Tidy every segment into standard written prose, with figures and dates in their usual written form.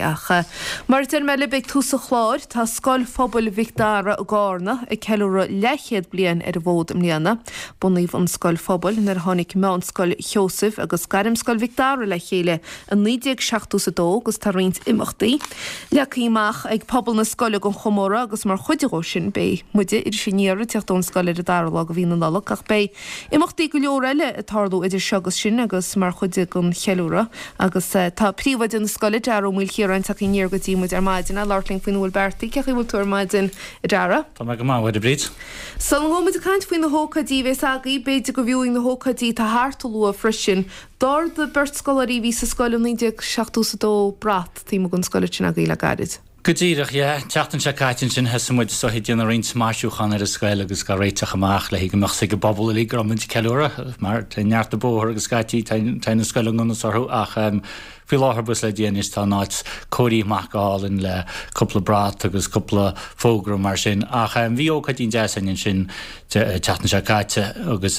Ach mar a deir mé libh ag tús an chláir, tá Scoil Phobail Mhic Dara i gCarna ag ceiliúradh leathchéad bliain ar an bhfód i mbliana. Bunaíodh an scoil phobail nuair a tháinig Meánscoil Sheosaimh agus Gairmscoil Mhic Dara le chéile i 1972 agus tá roinnt imeachtaí leagtha amach ag pobal na scoile don chomóradh agus mar chuid dhó sin beidh muide, Iris Aniar, ag teacht ón scoil ar an dara lá de mhí na Nollag ach beidh imeachtaí go leor eile ag tarlú idir seo agus sin agus mar chuid den cheiliúradh agus tá príomhoide na scoile, Dara Ó Maoilchiaráin, tagtha aniar go dtí muid ar maidin le labhairt linn faoina bhfuil beartaithe. Cén chaoi a bhfuil tú ar maidin, a Dara? Tá mé go maith, a Mháire Bríd. Sula ngabhfaidh muid ag caint faoi na hócáidí a bhéas agaibh, b'fhéidir gurbh fhiú na hócáidí atá thart a lua freisin. D'ardaigh beirt scoláirí a bhí sa scoil i 1972 brat taobh amuigh den scoil ansin agaibh le gairid. Go díreach, yeah. An tseachtain seo caite ansin thosaigh muid is dóichí ag déanamh roinnt maisiúchán ar an scoil agus á réiteach amach le go mbeadh 's ag an bpobal uilig go raibh muid ag ceiliúradh mar tá neart an bóthar agus scaití tá na scoile i ngan fhios orthu ach faoi láthair buíochas le Dia anois tá an áit cóirithe amach go hálainn le cúpla brat agus cúpla fógra mar sin ach bhí ócáidín deas againn ansin an tseachtain seo caite agus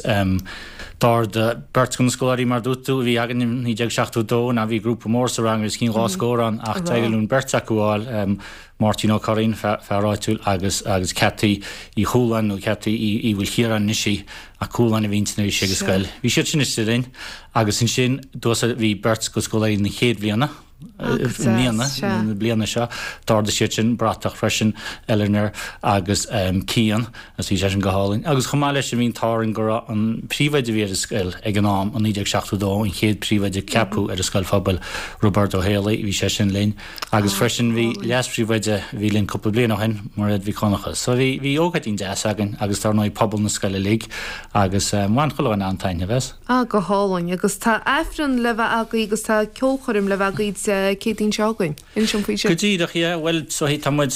d'ardaigh beirt de na scoláirí mar a dúirt tú a bhí againn in 1972 ná bhí grúpa mór sa rang os cionn 2 scór ann ach d'éirigh linn beirt acu a fháil, Máirtín Ó Curraoin, fear áitiúil agus agus Ceataí Uí Chualáin nó Ceataí Uí Mhaoilchiaráin anois í ach Cualáin a bhí inti nuair a bhí sí ag an scoil. Bhí siad sin istigh linn agus ansin bhí beirt de scoláirí na chéad bhliana. i mbliana, na bliana seo, d'ardaigh siad sin bratach freisin, Eleanor agus Cian, agus bhí sé sin go hálainn. Agus chomh maith leis sin bhí an t-ádh orainn go raibh an príomhoide a bhí ar an scoil ag an am, i 1972, an chéad príomhoide a ceapadh ar an scoil phobail, Roibeárd Ó Héalaí, bhí sé sin linn. Agus freisin bhí leas-phríomhoide a bhí linn cúpla bliain ó shin, Mairéad Mhic Dhonncha. So bhí, bhí ócáidín deas againn agus dar ndóigh pobal na scoile uilig agus bhain chuile dhuine an-taitneamh as. Ah, go hálainn. Agus tá Aifreann le bheith agaibh agus tá ceolchoirm le bheith agaibh Dé Céadaoin seo chugainn. Inis dom faoi sin. Go díreach, yeah. Bhuel, so tá muid,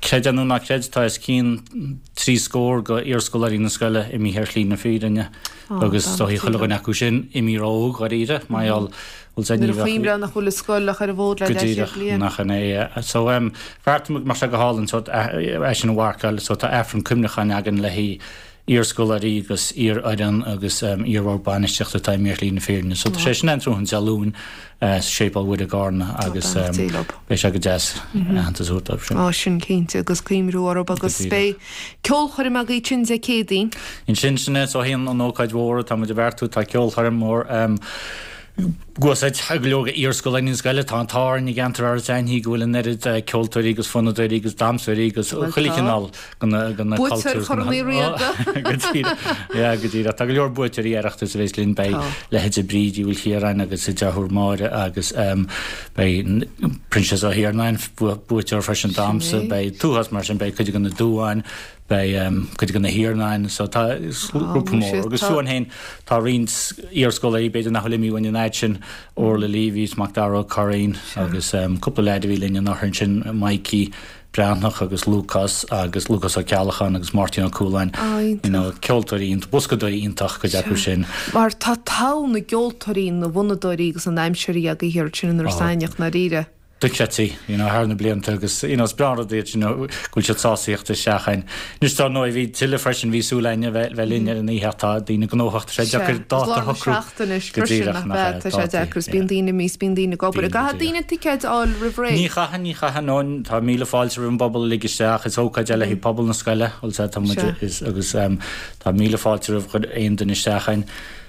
creid é nó ná creid, tá os cionn 30 scór go iarscoláirí na scoile imithe ar shlí na fírinne agus is dóichí chuile dhuine acu sin imithe ró-óg dháiríre, mar gheall, bhfuil 's a'd ní bheadh. Nuair a chuimhneofá nach bhfuil an scoil ach ar an bhfód le Go leathchéad díreach, bliain. nach in é, yeah. So, bheartaigh muid go mbeadh sé go hálainn, so, é sin a mharcáil, so tá Aifreann cuimhneacháin againn le haghaidh iarscoláirí agus iarfhoireann agus iarbhord bainistíochta atá imithe ar shlí na fírinne. So tá sé sin ann tráthnóna Dé Luain sa Séipéal Mhuire i gCarna agus beidh sé go deas aitheantas a thabhairt dóibh sin. Á sin cinnte agus cuimhniú orthu agus beidh ceolchoirm agaibh ansin Dé Céadaoin. Ansin sin é so an ócáid mhór atá muid a bheartú tá ceolchoirm mhór Agus go leor iarscoláirí na scoile, tá an t-ádh orainn i gceantar Iorras Aithnigh go bhfuil an oiread ceoltóirí agus fonnadóirí agus damhsóirí agus chuile chineál de na cultúir. Buaiteoir Chorn Uí Riada. Go díreach, yeah, go díreach. Tá go leor buaiteoirí Oireachtais a bheas linn, beidh leithéidí Bríd Uí Mhaoilchiaráin agus a deartháir Máire agus beidh Proinsias Ó hIarnáin, buaiteoir freisin damhsa, beidh tuathas mar sin, beidh cuid de na Dúáin, Beidh cuid de na hIarnáin so tá grúpa mór agus fiú amháin féin tá roinnt iarscoláirí b'fhéidir nach bhfuil imithe uainn an fhaid sin, Orla Leavy is Macdara Ó Curraoin agus cúpla leaid a bhí linn anuraidh ansin, Mikey Breathnach agus Lúcás agus Lúcás Ó Ceallacháin agus Máirtín Ó Cualáin, you know, ceoltóirí iontach, boscadóirí iontach cuid acu sin. Mar tá togha na gceoltóirí, na bhfonnadóirí agus na ndamhsóirí agaibh thiar ansin in Iorras Aithneach, ndáiríre. dochreidte, you know, thar na blianta agus, you know, is breá an rud iad, you know, go bhfuil siad sásta theacht isteach againn. Anois dar ndóigh bhí tuilleadh freisin, bhí súil againn a bheith, bheith linn ar an oíche ach tá daoine gnóthach, tá sé deacair dáta a shocrú. Sea, is lár na seachtaine anois freisin, nach ea, tá sé deacair, is bíonn daoine imithe, is bíonn daoine ag obair. An gcaithfidh daoine ticéid a fháil roimh ré? Ní chaithfidh, ní chaithfidh, no, tá míle fáilte roimh an bpobal uilig isteach, is ócáid é le haghaidh pobal na scoile, bhfuil 's a'd, tá muid, is, agus tá míle fáilte roimh aon duine isteach againn.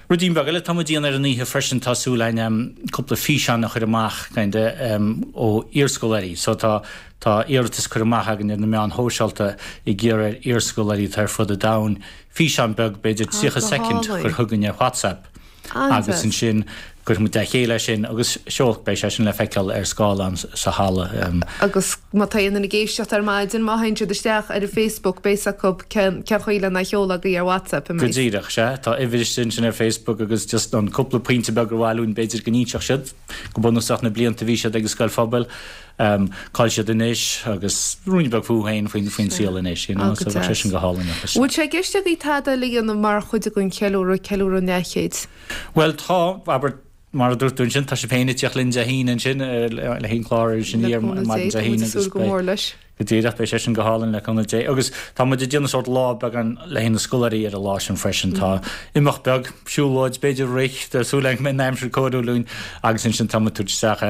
Ruidín beag eile atá muid a dhéanamh ar an oíche freisin, tá súil againn cúpla físeán a chur amach kinda ó iarscoláirí. So tá tá iarratas curtha amach againn ar na meáin shóisialta ag iarraidh ar iarscoláirí atá ar fud an domhain físeán beag, b'fhéidir 30 soicind, a chur chugainn ar WhatsApp agus ansin cuirfidh muid le chéile é sin agus seol, beidh sé sin le feiceáil ar scáileán sa halla. Agus má tá aon duine ag éisteacht ar maidin, má théann siad isteach ar an Facebook, beidh 's acu cén chaoi lena sheoladh agaibh ar WhatsApp, an mbeidh? Go díreach, sea. Tá uimhir istigh ansin ar Facebook agus just an cúpla pointe beag ar mhaith linn b'fhéidir go n-inseodh siad, go bunúsach na blianta a bhí siad ag an scoil phobail, cá bhfuil siad anois agus ruainne beag fúthu féin faoin faoin saol anois, you know, so bheadh sé sin go hálainn. Bhfuil sé i gceist agaibh tada eile a dhéanamh mar chuid den cheiliúradh, ceiliúradh an leathchéid? Bhuel tá, abair, mar a dúirt tú ansin, tá sibh féin ag tíocht linn Dé hAoine ansin le haghaidh an clár Iris Aniar maidin Dé haoine agus beidh. Go díreach, beidh sé sin go hálainn le cúnamh Dé. Agus tá muid ag déanamh sórt lá beagán le haghaidh na scoláirí ar an lá sin freisin. Tá imeacht beag, siúlóid, b'fhéidir rith, tá súil againn go mbeidh an aimsir cóiriúil dúinn agus ansin tá muid ag tabhairt isteach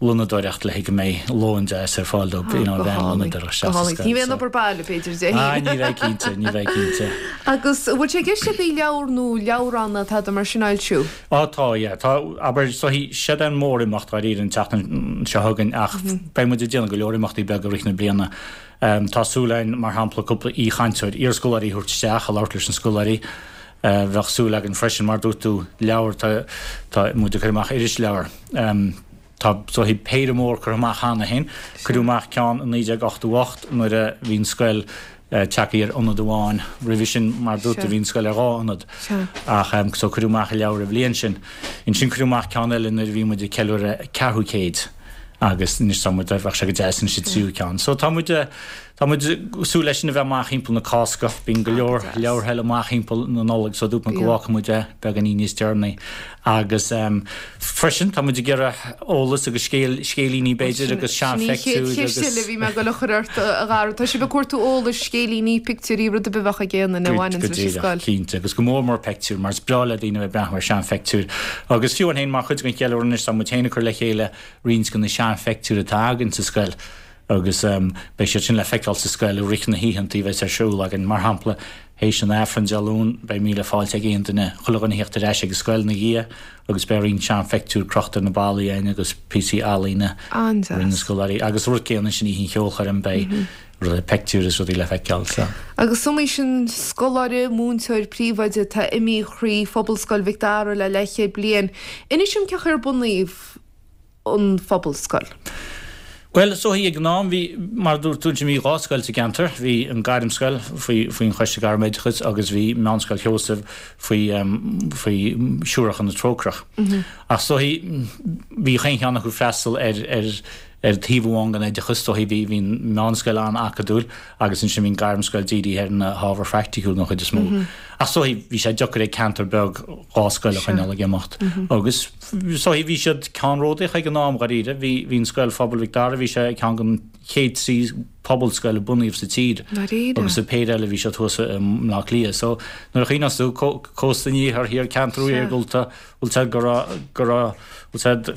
lónadóireacht le haghaidh go mbeidh lón deas ar fáil dóibh, you know, bheith an lónadóireacht isteach sa scoil. Ní bheidh an obair baile, b'fhéidir, Dé haoine. Ah, ní bheidh cinnte, ní bheidh cinnte. Agus an bhfuil sé i gceist agaibh leabhar nó leabhrán nó tada mar sin a fhoilsiú? Á tá, yeah. Tá, abair, so siod é an mór-imeacht dháiríre an tseachtain seo chugainn ach beidh muid ag déanamh go leor imeachtaí beaga i rith na bliana. Tá súil againn, mar shampla, cúpla aoichainteoir, iarscoláirí a thabhairt isteach a labhairt leis na scoláirí. Bheadh súil againn freisin, mar dúirt tú, leabhar, tá, tá muid ag cur amach irisleabhar. Tá so péire mór curtha amach cheana féin. Cuireadh amach ceann i 1988 nuair a bhí an scoil tagtha ar ionad amháin. Roimhe sin, mar dúirt tú, bhí an scoil ar dhá ionad. Ach so cuireadh amach an leabhar an bhliain sin. Ansin cuireadh amach ceann eile nuair a bhí muid ag ceiliúradh ceathrú céid agus anois tá muid, bheadh sé go deas anois an tríú ceann. So tá muid, tá muid ag súil leis sin a bheith amach thimpeall na Cásca. Bíonn go leor leabhartha eile amach thimpeall na Nollag so dúirt muid go bhfágfaidh muid é beagáinín níos deireanaí. Agus freisin, tá muid ag iarraidh eolas agus scéal, scéilíní b'fhéidir agus Sin í an chéad seanphictiúir cheist eile a bhí mé ag dul a chur ort, a Dhara. Tá sibh ag cuartú eolais, scéilíní, pictiúirí, rud ar bith a bheadh ag aon duine a bhaineanns Go leis an díreach, scoil. cinnte. Agus go mór mór peictiúir, mar is breá le daoine a bheith ag breathnú ar seanpheictiúir. Agus fiú amháin féin, mar chuid den cheiliúradh anois, tá muid féin ag cur le chéile roinnt de na seanpheictiúir atá againn sa scoil. agus beidh siad sin le feiceáil sa scoil i rith na hoícheanta a bheas ar siúl againn. Mar shampla, théis an Aifrinn Dé Luain, beidh míle fáilte ag aon duine, chuile dhuine a theacht ar ais ag an scoil ina dhiaidh agus beidh roinnt seanpheictiúr crochta ar na ballaí againn agus píosaí ealaíne a rinne na scoláirí. Agus an rud céanna ansin oíche an cheolchoirm, beidh rudaí, peictiúir is rudaí le feiceáil. So. Agus is iomaí sin scoláire, múinteoir, príomhoide atá imithe thrí Phobalscoil Mhic Dara le leathchéad bliain. Inis dom cén chaoi ar bunaíodh an Phobalscoil? Bhuel, is dóichí ag an am, bhí, mar a dúirt tú ansin, bhí dhá scoil sa gceantar. Bhí an Gairmscoil faoi, faoin Choiste Gairmoideachais agus bhí Meánscoil Sheosaimh faoi, faoi Siúracha na Trócaireach. Ach is dóichí, bhí chaon cheann acu ag freastal ar, ar, ar taobh amháin den oideachas. Is dóichí bhí, bhí an Mheánscoil an-acadúil agus ansin bhí an Gairmscoil dírithe ar na hábhair phraiticiúla den chuid is mó. Ach is dóichí, bhí sé deacair ag ceantar beag dhá scoil a choinneáil ag imeacht agus, So bhí siad ceannródaíoch ag an am, dháiríre. Bhí, bhí an Scoil Phobail Mhic Dara, bhí sé ceann den chéad trí pobalscoil a bunaíodh sa tír. Dáiríre? Agus an péire eile bhí siad thuas i mBleá Cliath. So nuair a chuimhneos tú, cósta an iarthair thiar, ceantar iargúlta, bhfuil 's a'd go raibh, go raibh, bhfuil 's a'd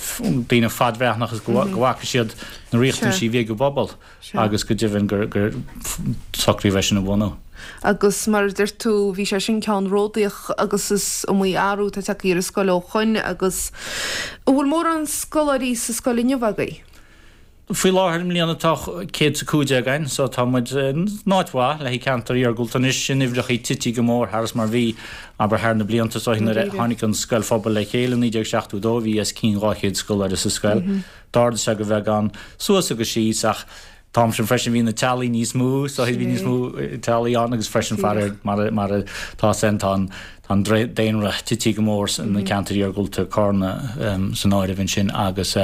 daoine fadbhreathnach agus go bhfaca siad na riachtanaisí a bhí ag an bpobal. agus go deimhin gur socraíodh é sin a bhunú. Agus mar a deir tú, bhí sé sin ceannródaíoch agus is iomaí athrú atá tagtha ar an scoil ó shoin agus an bhfuil mórán scoláirí sa scoil inniu agaibh? Faoi láthair i mbliana tá 115 againn so tá muid in áit mhaith le haghaidh ceantar iargúlta anois, na huimhreachaí tití go mór thar is mar bhí abair thar na blianta so nuair a tháinig an scoil phobail le chéile i 1972 bhí os cionn 200 scoláire sa scoil. D'ardaigh sé go bheagán suas agus síos ach an t-am sin freisin bhí na teaghlaigh níos mó so bhí níos mó teaghlaigh ann agus freisin faraor mar mar atá san tá an tá an daonra tití go mór sna ceantair iargúlta Carna san áireamh ansin agus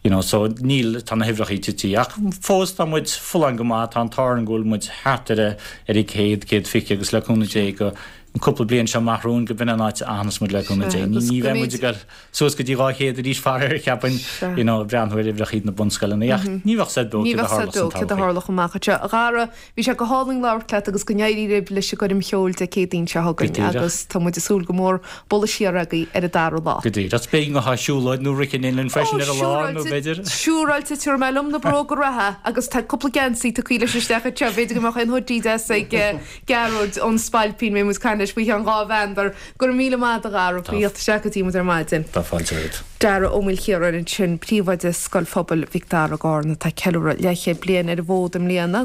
you know so níl tá na huimhreachaí tití ach fós tá muid folláin go maith tá an t-ádh orainn go bhfuil muid thart ar a ar a 100 120 agus le cúnamh Dé go an cúpla bliain seo amach romhainn go b'in an áit a fhanfas muid le cúnamh Dé ní bheidh muid ag dul suas go dtí 200 arís faraor, cheapfainn, you know, ag breathnú ar uimhreachaí na bunscoileanna ach ní bheadh said beo Ní céard a bheadh said tharlódh beo san céard a todhchaí. tharlódh amach anseo. A Dhara, bhí sé go hálainn labhairt leat agus go n-éirí libh leis an gcoirm cheoil Dé Céadaoin seo Go chugainn díreach. agus tá muid ag súil go mór bualadh siar agaibh ar an dara lá. Go díreach. B'fhéidir go mbeadh siúlóid nó rith in linn freisin ar an lá nó b'fhéidir. Siúráilte, tabharfaidh mé liom na bróga reatha agus tá cúpla geansaí tugtha leis isteach anseo, b'fhéidir go mbeadh aon hoodie deas ag Gearóid ón Spailpín, beidh muid ag caint leis faoi cheann dhá mheandar. Go raibh míle maith agat a Dhara, faoi theacht isteach go dtí muid ar maidin. Tá fáilte romhat. Dara Ó Maoilchiaráin ansin, Príomhoide Scoil Phobail Mhic Dara i gCarna, atá ag ceiliúradh leathchéad bliain ar an bhfód i mbliana.